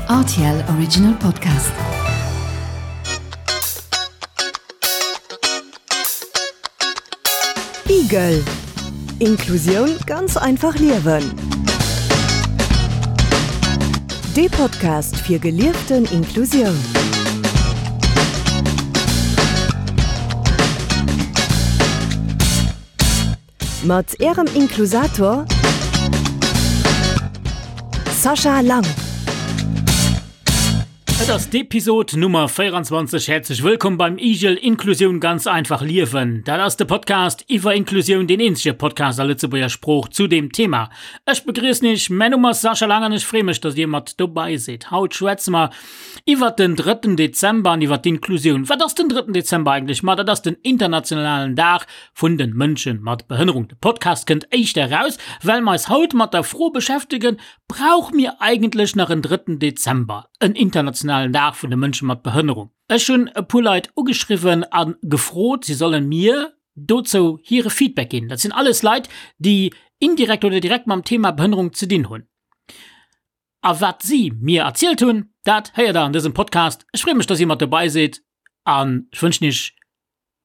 Rtl Original Podcast. Igel. Inklusioun ganz einfach liewen. Dee Podcast fir gelieften Inklusioun. Mat Ärem Inklusator Sascha Lang. Et ass d'Episod Nummer 24. Häerzlech wëllkomm beim Igel Inklusioun ganz einfach liewen. Dat ass de Podcast iwwer Inklusioun, deen eenzege Podcast a Lëtzebuerger Sprooch zu deem Thema. Ech begriissen iech, mäin Numm ass Sascha Lang an ech freeë mech, dass dir mat dobei sidd. Haut schwätze mer iwwert den drëtten Dezember an iwwert d'Inklusioun. Wat ass den drëtten Dezember eigentlech? Ma dat ass den internationalen Dag vun den Mënschen mat Behënnerung. De Podcast kënnt éischter eraus, well mer eis haut mat der Fro beschäftegen, Brauche mir eigentlech nach en drëtten Dezember, en internationalen Dag vun de Mënsche mat Behënnerung? Ech hunn e puer Leit ugeschriwwen a gefrot, si sollen mir dozou hire Feedback ginn. Dat sinn alles Leit, déi indirekt oder direkt mam Thema Behënnerung ze dinn hunn. A wat si mir erzielt hunn, dat héiert der an dësem Podcast. Ech freeë mech, dass dir mat dobei sidd an ech wënschen iech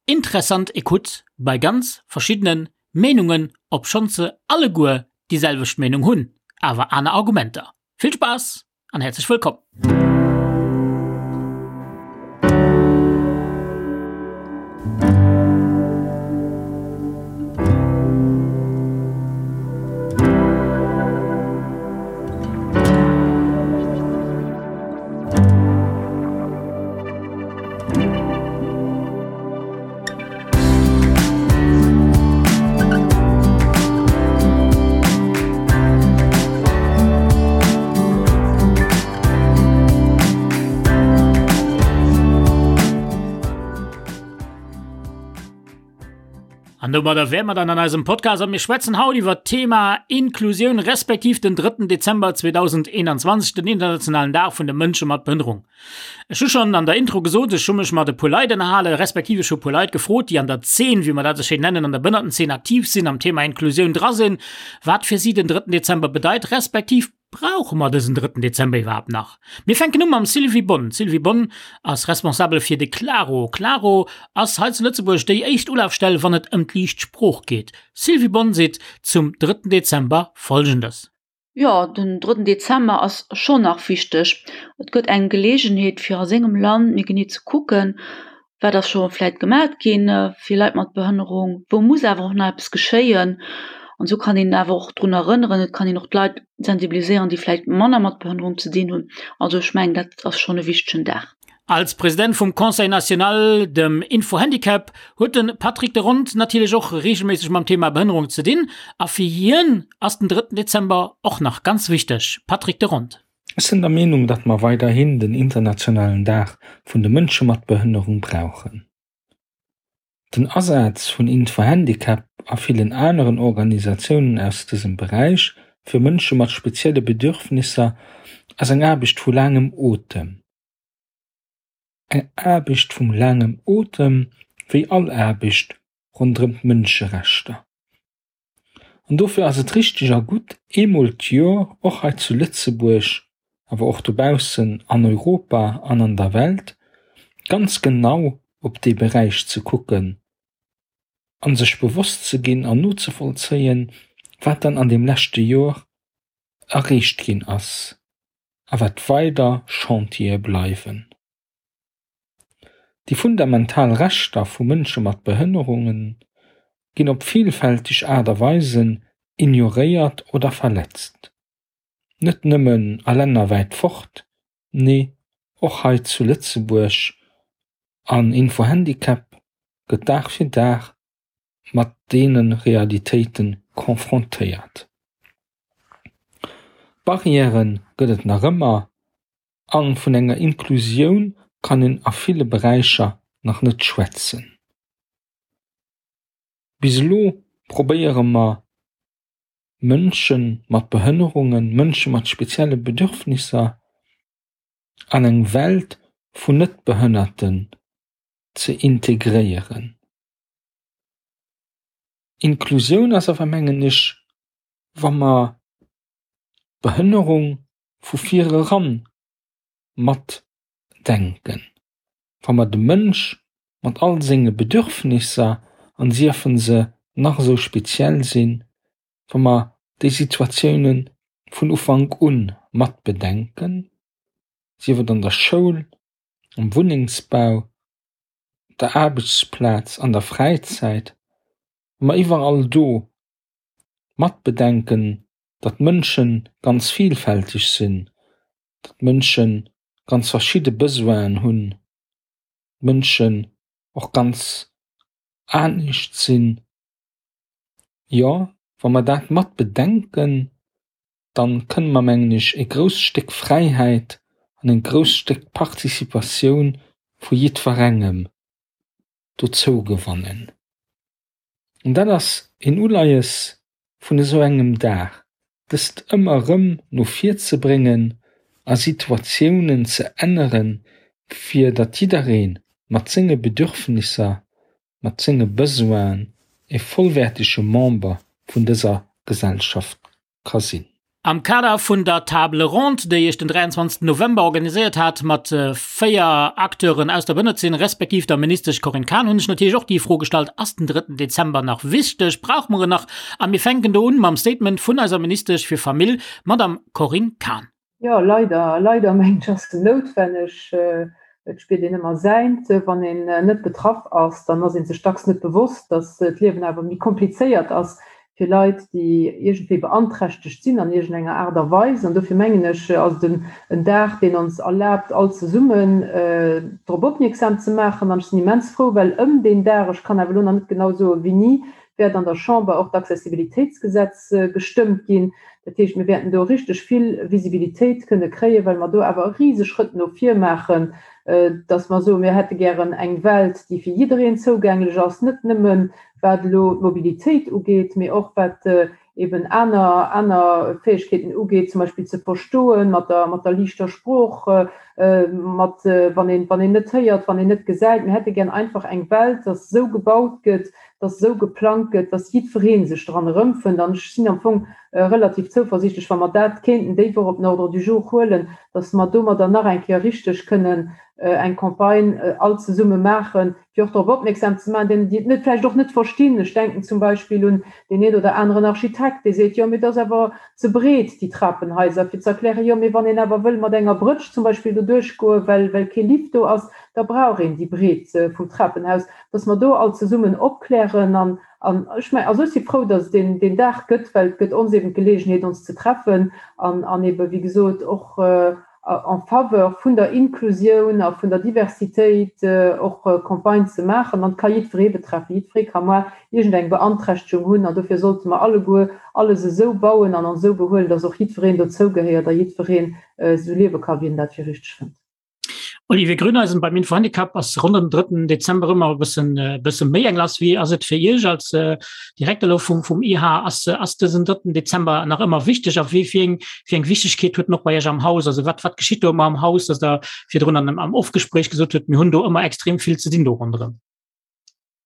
interessant Ecoute bei ganz verschiddene Meenungen, obschonns se alleguer déi selwecht Meenung hunn, awer aner Argumenter. Vill Spaass an häerzlech wëllkomm! An domadder wäre mer dann an eisem Podcast a mir schwätzen haut iwwer d'Thema Inklusioun respektiv den 3. Dezember 2021, den internationalen Dag vun de Mënsche mat Behënnerung. Ech hu schonn an der Intro gesot, ech hu mech mat e puer Leit ënnerhalen, respektiv ech hu e puer Leit gefrot, déi an der Zeen, wéi mer dat esou schéin nennen, an der Behënnertenzeen aktiv sinn, am Thema Inklusioun dra sinn, wat fir si den drëtten Dezember bedeit, respektiv brauche mer dësen drëtten Dezember iwwerhaapt nach? Mir fänken u mam Sylvie Bonn. D'Sylvie Bonn ass Responsabel fir de Klaro. Klaro ass hei zu Lëtzebuerg déi éischt Ulafstell, wann et ëm d'liicht Sprooch geet. Sylvie Bonn seet zum drëtten Dezember Folgendes. Jo, den drëtten Dezember ass schonn nach wichteg. Et gëtt eng Geleegenheet fir a sengem Land méi genee ze kucken, wat ass scho vläit gemat ginn fir Leit mat Behënnerung, wou muss awer och nach eppes geschéien. An esou kann een awer och drun erënneren, et kann een och d'Leit sensibiliséieren, déi vläit manner mat Behënnerung ze dinn hunn. Also ech mengen, dat ass schonn e wichtegen Dag. Als President vum Conseil national, dem Info-Handicap, huet de Patrick de Rond natierlech och reegelméisseg mam Thema Behënnerung ze dinn a fir hien ass den drëtten Dezember och nach ganz wichteg. Patrick de Rond. Ech sinn der Meenung, datt mer weiderhin den internationalen Dag vun de Mënsche mat Behënnerung brauchen. Den Asaz vun Info-Handicap a villen aneren Organisatiounen aus dësem Beräich fir Mënsche mat spezielle Bedürfnisser ass eng Aarbecht vu laangem Otem. Eng Aarbecht vum laangem Otem, wéi all Aarbecht ronderëm d'Mënscherechter. An dofir ass et richteg a gutt, eemol d'Jor och hei zu Lëtzebuerg, awer och dobaussen an Europa an an der Welt, ganz genau op dee Beräich ze kucken a sech bewosst ze ginn an nozevollzéien, wat dann an deem leschte Jor erreecht ginn ass a wat weider Chantiere bleiwen. Déi fundamental Rechter vu Mënsche mat Behënnerunge ginn op villfälteg Aart a Weisen ignoréiert oder verletzt. Net nëmmen a Länner wäit fort, nee och hei zu Lëtzebuerg an Info-Handicap gëtt Dag fir Dag mat deene Realitéite confrontéiert. Barrièrë gëtt et nach ëmmer a vun enger Inklusioun kann een a ville Beräicher nach net schwätzen. Bis elo probéiere mer Mënsche mat Behënnerungen, Mënsche mat spezielle Bedürfnisser an eng Welt vun Net-Behënnerten ze integréieren. Inklusioun ass awer, mengen ech, wa mer d'Behënnerung vu vir eran. matdenken, wa mer de Mënsch mat all senge Bedürfnisser, an siefen se nach esou speziell sinn, wa mer déi Situatioune vun Ufank u mat bedenken, sief et an der Schoul, am Wunnengsbau, op der Aarbechtsplaz, an der Fräizäit, wa mer iwwerall do mat bedenken, datt Mënsche ganz vielfälteg sinn, datt Mënsche ganz verschidde Besoinen hunn, Mënschen och ganz anescht sinn. Jo, wa mer dat mat bedenken, dann kënne mer, mengen ech, e grousst Stéck Fräiheit an e grousst Stéck Participatioun vu jiddwerengem dozou gewannen. An dat ass een Uleies vun esou engem Dag, dëst ëmmer erëm no vir ze bréngen a Situatiounen ze änneren, fir datt jidderee mat senge Bedürfnisser, mat senge Besoinen e vollwäertege Member vun dëser Gesellschaft ka sinn. Am Kader vun der Table ronde, déi ech den 23 November organiséiert hat mat 4 Acteuren aus der Bënnerzeen, respektiv der Ministesch Corinne Cahen, hunn ech natierlech och déi Fro gestallt, Ass den drëtten Dezember nach wichteg? Brauche mer en nach? A mir fänken do un mam Statement vun eiser Ministesch fir Famill, Madamm Corinne Cahen. Jo, leider, leider mengen ech ass en noutwenneg. Et spiert een ëmmer säint. Wann een net betraff ass, dann ass ee sech dacks net bewosst, datt d'Liewen awer méi komplizéiert ass fir Leit, déi iergendwéi beanträchtegt sinn an iergendenger Aart a Weis. An dofir mengen ech, ass et en Dag, deen ons erlaabt, all zesummen drop opmierksam ze maachen. An ech sinn immens frou, well ëm deen Dag, ech kann awer elo nach net genau soen, wéini, wäert an der Chamber och d'Accessibilitéitsgesetz gestëmmt ginn. Dat heescht, mir wäerten do richteg vill Visibilitéit kënne kréien, well mer do awer e rise Schrëtt no vir maachen, dass mer soen, mir hätte gären eng Welt, déi fir jiddereen zougänglech ass, net nëmme wat elo d'Mobilitéit ugeet, mee och wat eben aner, aner Fäegkeeten ugeet, zum Beispill ze verstoen mat der, mat der liichter Sprooch, mat, wann een, wann een net héiert, wann een net gesäit. Mir hätte gären einfach eng Welt, dass esou gebaut gëtt, dass esou geplangt gëtt, dass jiddweree sech dran erëmfënnt. An ech sinn am Fong relativ zouversiichtlech, wa mer dat kéinten déi Woch op den Ordre du jour huelen, dass mer domadder nach eng Kéier richteg kënnen eng Campagne all zesumme maachen, fir och drop opmierksam ze maachen, deenen, déi et net vläicht och net verstinn. Ech denken zum Beispill un deen een oder aneren Architekt, dee seet, jo, mee dat ass awer ze breet, déi Trapenhaiser, fir ze erklären, jo, mee wann een awer wëll mat enger Brëtsch zum Beispill do duerchgoen, well, well kee Lift do ass, da brauch een déi Breet vum Trapenhaus. dass mer do all zesummen opklären an, an ech mengen, also ech si frou, dass et deen, deen Dag gëtt, well et gëtt ons eben d'Geleegenheet, ons ze treffen an, an ebe wéi gesot och en faveur vun der Inklusioun a vun der Diversitéit och Campagne ze maachen. An et ka jiddweree betreffen, jiddweree ka moar iergendeng Beanträchtegung hunn an dofir sollte mer alleguer alles esou bauen an ons esou behuelen, dass och jiddwereen dozougehéiert a jiddwereen esou liewe ka wéi en dat fir richteg fënnt. Olivier Grüneisen beim Infohandicap ass rund am 3. Dezember ëmmer e bëssen äh, bësse méi eng lass. Wie ass et fir Iech als äh, Direkter lo vum vum IH ass äh, ass dësen 3. Dezember nach ëmmer wichteg a wéi fir eng fir eng Wichtegkeet huet noch bei Iech am Haus? Also wat wat geschitt do ëmmer am Haus, dass der virdrun an am Offgespräch gesot huet, mir hunn do ëmmer extrem vill ze dinn do ronderëm.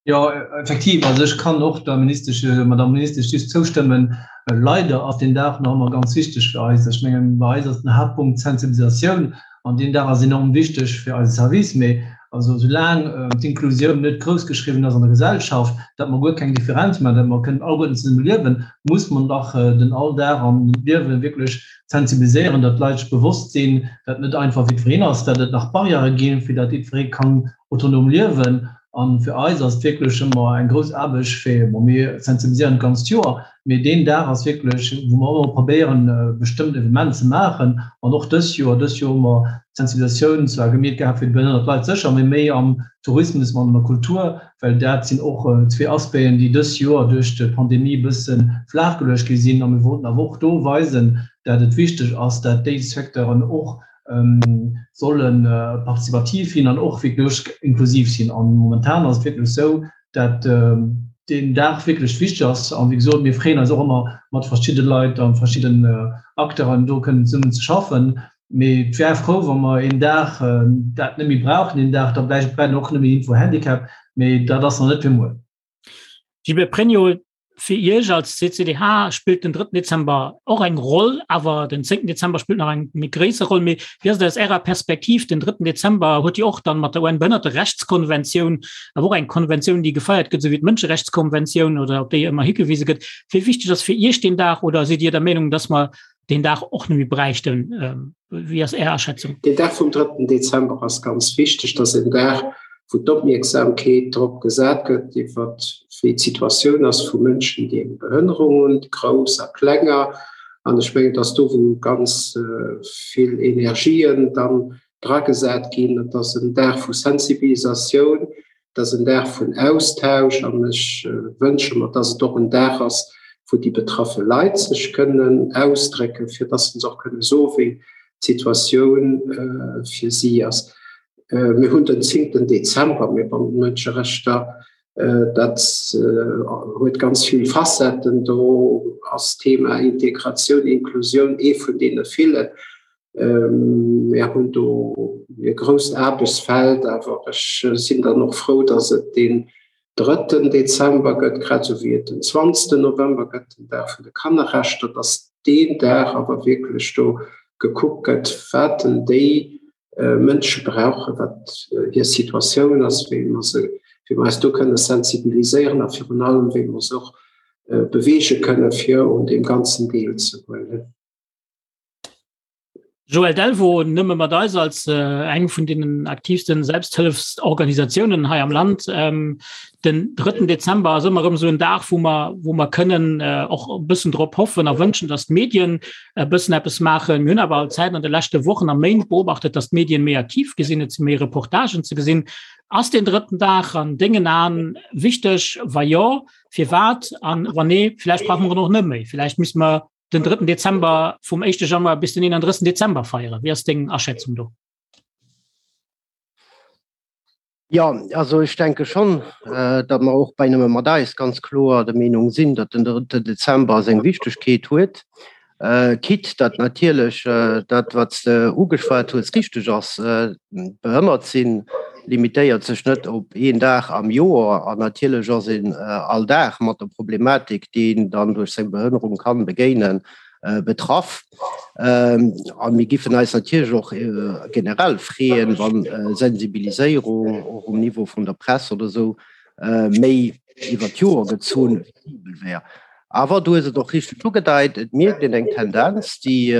Jo, effektiv. Also ech kann och der Ministesch, Madame Ministesch just zoustëmmen. Leider ass deen Dag nach ëmmer ganz wichteg fir eis. Ech mengen, bei eis ass den Haaptpunkt d'Sensibilisatioun an deen Dag ass enorm wichteg fir eise Service. Mee also soulaang d'Inklusioun net groussgeschriwwen ass an der Gesellschaft, datt mer guer keng Differenz maachen, datt mer kënnen alleguerten zesumme liewen, muss mer nach den Alldag an d'Liewe wierklech sensibiliséieren, datt d'Leit sech bewosst sinn, datt net einfach jiddwereen ass, datt et nach Barrièrë ginn, fir datt jiddweree kann autonom liewen. A fir eis ass et wierklech ëmmer eng grouss Aarbecht, fir, bon, mir sensibiliséieren d'ganzt Joer, mee deen Dag ass wierklech, wou mer ëmmer probéieren, bestëmmt Evenement ze maachen. An och dës Joer, dës Joer hu mer d'Sensibilisatioun zwar gemeet gehat fir déi behënnert Leit sécher, mee méi am Tourismus an an der Kultur, well dat sinn och zwee Aspecten, déi dës Joer duerch d'Pandemie e bësse flaachgeluecht gi sinn. A mir wollten awer och do weisen, dat et wichteg ass, dat déi Secteuren och solle participativ sinn an och wierklech inklusiv sinn. An momentan ass et wierklech esou, dat deen Dag wierklech wichteg ass. An wéi gesot, mir freeën eis och ëmmer, mat verschidde Leit a verschidden Acteuren do kënnen zesummen ze schaffen. Mee et wär frou, wa mer een Dag dat net méi brauchen, deen Dag da vläicht brennt och net méi Info Handicap, mee dat ass nach net fir muer. Gilbert Pregno. Fir Iech als CCDH spillt den 3. Dezember och eng Roll, awer den 10. Dezember spillt nach eng méi gréisser Roll. Mee wéi ass et aus Ärer Perspektiv, den 3. Dezember huet jo och dann mat der UN-Behënnerterechtskonventioun, awer och eng Konventioun, déi gefeiert gëtt, esou wéi d'Mënscherechtskonventioun oder op déi ëmmer higewise gëtt. Wéi wichteg ass fir Iech deen Dag oder sidd Dir der Meenung, dass mer deen Dag och net méi bräichten? Wéi ass Är Aschätzung? Deen Dag vum drëtten Dezember ass ganz wichteg. Dat ass en Dag, wou d'Opmierksamkeet drop gesat gëtt, iwwer wéi d'Situatioun ass vu Mënschen, déi eng Behënnerung hunn, grouss a klenger. An ech mengen, et ass do, wou ganz vill Energien dann dragesat ginn. Et ass en Dag vu Sensibilisatioun, Et ass en Dag vun Austausch an ech wënsche mer, dass et och en Dag ass, wou déi betraffe Leit sech kënnen ausdrécken, fir dass se och kënne soen, wéi d'Situatioun fir si ass. Mir hunn den zéngten Dezember, mee bon, d'Mënscherechter, dat huet ganz vill Facetten. Do ass d'Thema Integratioun, Inklusioun ee vun deene villen. Mir hunn do e grousst Aarbechtsfeld, awer ech sinn dann och frou, datt et deen drëtten Dezember gëtt, grad esou wéi et den zwanzegsten November gëtt, den Dag vun de Kannerrechter, datt deen Dag awer wierklech do gekuckt gëtt, wat denn déi Mënsche brauchen, wat hir Situatioun ass, wéi mer se, wéi mer eis do kënne sensibiliséieren a virun allem wéi mer se och beweege kënne fir un deem Ganzen deelzehuelen. Joël Delvaux, Nëmme mat eis als eng vun deenen aktiivsten Selbsthëllefsorganisatiounen hei am Land. Den drëtten Dezember ass ëmmer erëm esou en Dag, wou mer, wou mer kënnen och e bëssen drop hoffen a wënschen, datt d'Medien e bëssen eppes maachen. Mir hunn awer all Zäit an de leschte Wochen a Méint beobachtet, datt d'Medien méi aktiv gi sinn, et si méi Reportagen ze gesinn. Ass deen drëtten Dag an dengen Aen wichteg? Wa jo, firwat? An wann nee, vläicht brauche mer en och net méi. Vläicht misste mer den 3. Dezember vum 1. Januar bis den 31. Dezember feieren. Wie ass deng Aschätzung do? Ja, also ech denke schon, äh, datt mer och bei Nëmme mat eis ganz kloer der Meenung sinn, datt den 3. Dezember seng Wichtegkeet huet. Äh, quitte datt natierlech äh, dat, wat s de ugeschwat hues, richteg ass, äh, behënnert sinn limitéiert sech net op een Dag am Joer an natierlech ass een all Dag mat der Problematik, déi een dann duerch seng Behënnerung kann begéinen, betraff. A mir giffen eis natierlech och generell freeën, wann Sensibiliséierung och um Niveau vun der Press oder esou méi iwwer d'Joer gezunn visibel wär. Awer du hues et och richteg ugedeit, et mierkt een eng Tendenz, déi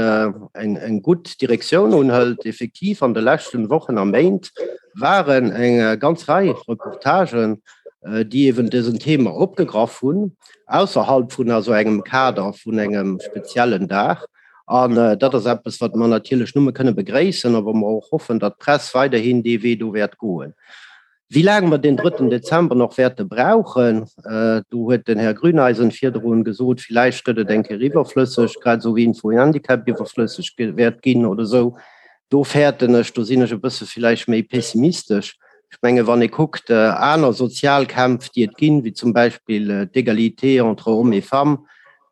eng gutt Direktioun unhëlt. Effektiv, an de leschten Wochen a Méint waren eng ganz Rei Reportagen, déi eeben dësen Thema opgegraff hunn, ausserhalb vun also engem Kader vun engem speziellen Dag. An dat ass eppes, wat mer natierlech nëmme kënne begréissen a wou mer och hoffen, datt d'Press weiderhin dee Wee do wäert goen. Wéi laang mer deen drëtten Dezember nach wäerte brauchen, do huet den Här Grüneisen virdrun gesot, villäicht gëtt et eng Kéier iwwerflësseg, grad esou wéi Info-Handicap iwwerflësseg wäert ginn oder esou. Do fäerten ech, do sinn ech e bësse villäicht méi pessimistesch. Ech menge wann ee kuckt aner sozial Kämpf, déi et ginn, wéi zum Beispill d'Égalité entre hommes et femmes,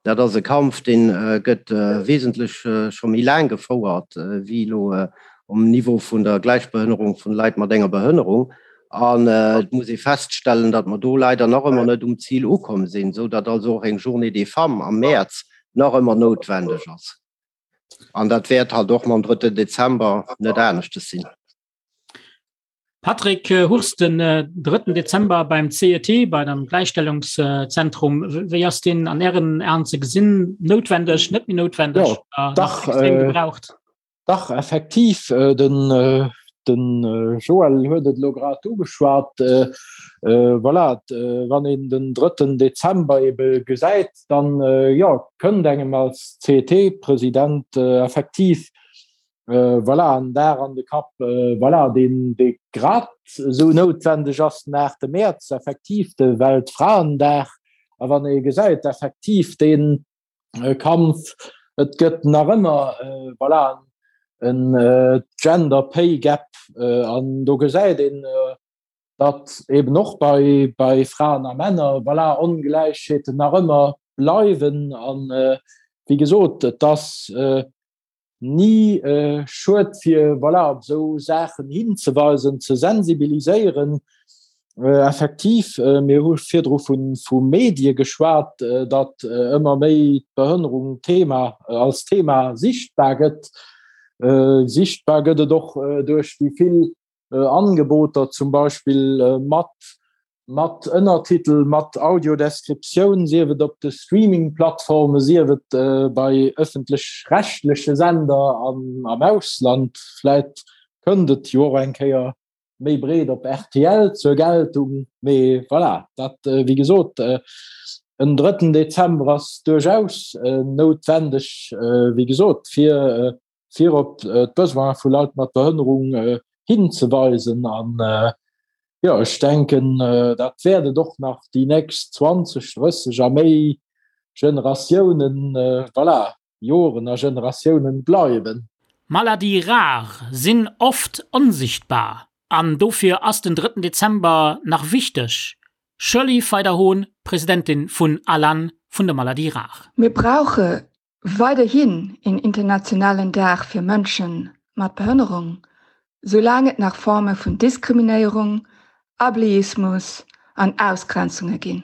Dat ass e Kampf, dee gëtt wesentlech scho méi laang gefouert wéi elo um Niveau vun der Gläichbehënnerung vun Leit mat enger Behënnerung. An et muss ee feststellen, datt mer do leider nach ëmmer net um Zil ukomm sinn, esou datt also och eng Journée des femmes am Mäerz nach ëmmer noutwendeg ass. An dat wäert halt och mam drëtten Dezember net aneschtes sinn. Patrick Hurst, den drëtten Dezember beim CET, bei dem Gläichstellungszentrum, wéi ass deen an Ären Aen ze gesinn? Noutwendeg, net méi noutwendeg? Jo, dach, gebraucht? Dach, effektiv, den den Joël huet et elo grad ugeschwat. Voilà, wann een den drëtten Dezember ebe gesäit, dann jo, kënnt engem als CET-President effektiv Voilà, en Dag an de Kapp, voilà, deen dee grad esou noutwendeg ass, den 8 Mäerz, effektiv de Weltfraendag. A wann ee gesäit, effektiv dee Kampf, et gëtt nach ëmmer, voilà, en Gender Pay Gap an do gesäit een, datt eben och bei bei Fraen a Männer, voilà, Ongläichheeten nach ëmmer bleiwen. An wéi gesot, et ass ni schued fir voilà op esou Saachen hinzeweisen, ze sensibiliséieren. Effektiv, mir hu virdru vu Medie geschwat, datt ëmmer méi d'Behënnerung Thema als Thema sichtbar gëtt. Sichtbar gëtt et och duerch déi vill Angeboter, zum Beispill mat mat Ënnertitel, mat Audiodescriptioun, sief et op de Streaming-Plattforme, sief et bei ëffentlech-rechtleche Sender an am Ausland. Vläit kënnt et jo och eng Kéier méi breet op rtl zur Geltung. Mee voilà, dat wéi gesot, en drëtten Dezember ass duerchaus noutwendeg, wéi gesot, fir fir op d'Besoine vu Leit mat Behënnerung hinzeweisen. An jo, ech denken, dat wäert et och nach déi nächst 20, 30 a méi Generatiounen, voilà, Joren a Generatiounen bleiwen. Maladies rares sinn oft onsichtbar an dofir ass den drëtten Dezember nach wichteg, Shirley Feider-Hohn, Presidentin vun ALAN vun de Maladies rares. Mir brauche weiderhin een internationalen Dag fir Mënsche mat Behënnerung, soulaang et nach Forme vun Diskriminéierung, Ableismus an Ausgrenzunge ginn.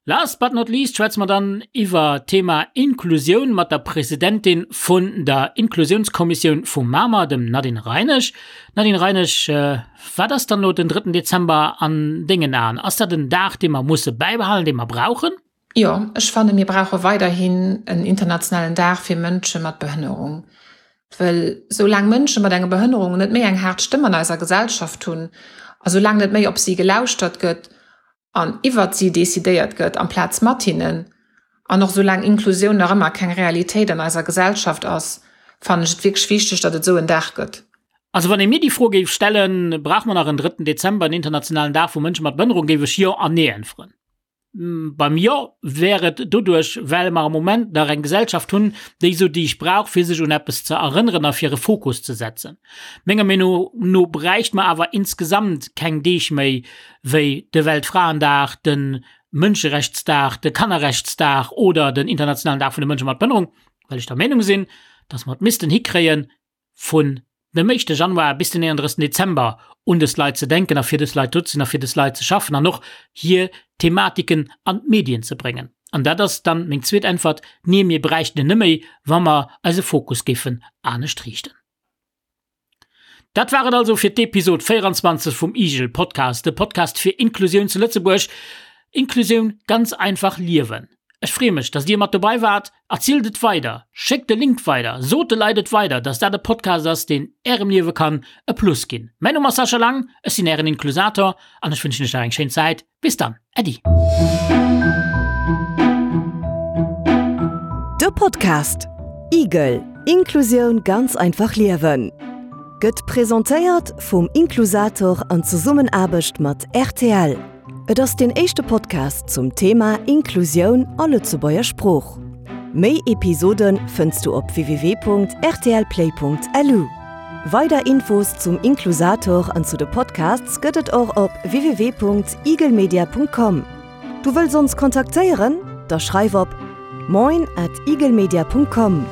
Last but not least schwätze mer dann iwwer d'Thema Inklusioun mat der Presidentin vun der Inklusiounskommissioun vu Mamer, dem Nadine Reinesch. Nadine Reinesch, wat ass dann elo den drëtten Dezember an dengen Aen? Ass dat en Dag, dee mer musse bäibehalen, dee mer brauchen? Jo, ech fanne mir brauche weiderhin en internationalen Dag fir Mënsche mat Behënnerung. Well soulaang Mënsche mat enger Behënnerung net méi eng haart Stëmm an eiser Gesellschaft hunn a soulaang net méi op si gelauschtert gëtt an iwwert si decidéiert gëtt amplaz mat hinnen, an och soulaang Inklusioun nach ëmmer keng Realitéit an eiser Gesellschaft ass, fannen ech et wierklech wichteg, datt et esou en Dag gëtt. Also wann ee mir déi Fro géif stellen, Brauche mer nach en drëtten Dezember, en internationalen Dag vu Mënsche mat Behënnerung, géif ech Jo an Nee äntweren. Beim Jo wär et doduerch, well mer am Moment nach eng Gesellschaft hunn, déi esou Deeg brauch, fir sech un eppes ze erënneren a fir e Fokus ze setzen. Menger Meenung no bräicht mer awer insgesamt keng Deeg méi wéi de Weltfraendag, de Mënscherechtsdag, de Kannerrechtsdag oder den internationalen Dag vun de Mënsche mat Behënnerung, well ech der Meenung sinn, dass mer et missten hikréien, vun dem éischte Januar bis den 31. Dezember un dës Leit ze denken a fir dës Leit do ze sinn a fir dës Leit ze schaffen an och hir Thematiken an d'Medien ze bréngen. An dat ass dann meng zweet Äntwert, Nee, mir bräichten en net méi, wa mer eise Fokus géifen anescht riichten. Dat war et also fir d'Episod 24 vum IGEL Podcast, de Podcast fir Inklusioun zu Lëtzebuerg. Inklusioun ganz einfach liewen. Ech freeë mech, dass Dir mat dobei waart. Erzielt et weider, schéckt de Link weider, sot de Leit et weider, dass dat e Podcast ass, deen Ärem Liewe kann e Plus ginn. Mäin Numm ass Sascha Lang, ech sinn Ären Inklusator an ech wënschen Iech nach eng schéin Zäit. Bis dann, Äddi. De Podcast Igel, Inklusioun ganz einfach liewen gëtt presentéiert vum Inklusator an Zesummenaarbecht mat rtl. Et ass deen éischte Podcast zum Thema Inklusioun a Lëtzebuerger Sprooch. Méi Episode fënns du op www.rtlplay.lu. Weider Infos zum Inklusator an zu de Podcasts gëtt et och op www.igelmedia.com. Du wëlls ons kontaktéieren? Da schreif op moin at igelmedia.com.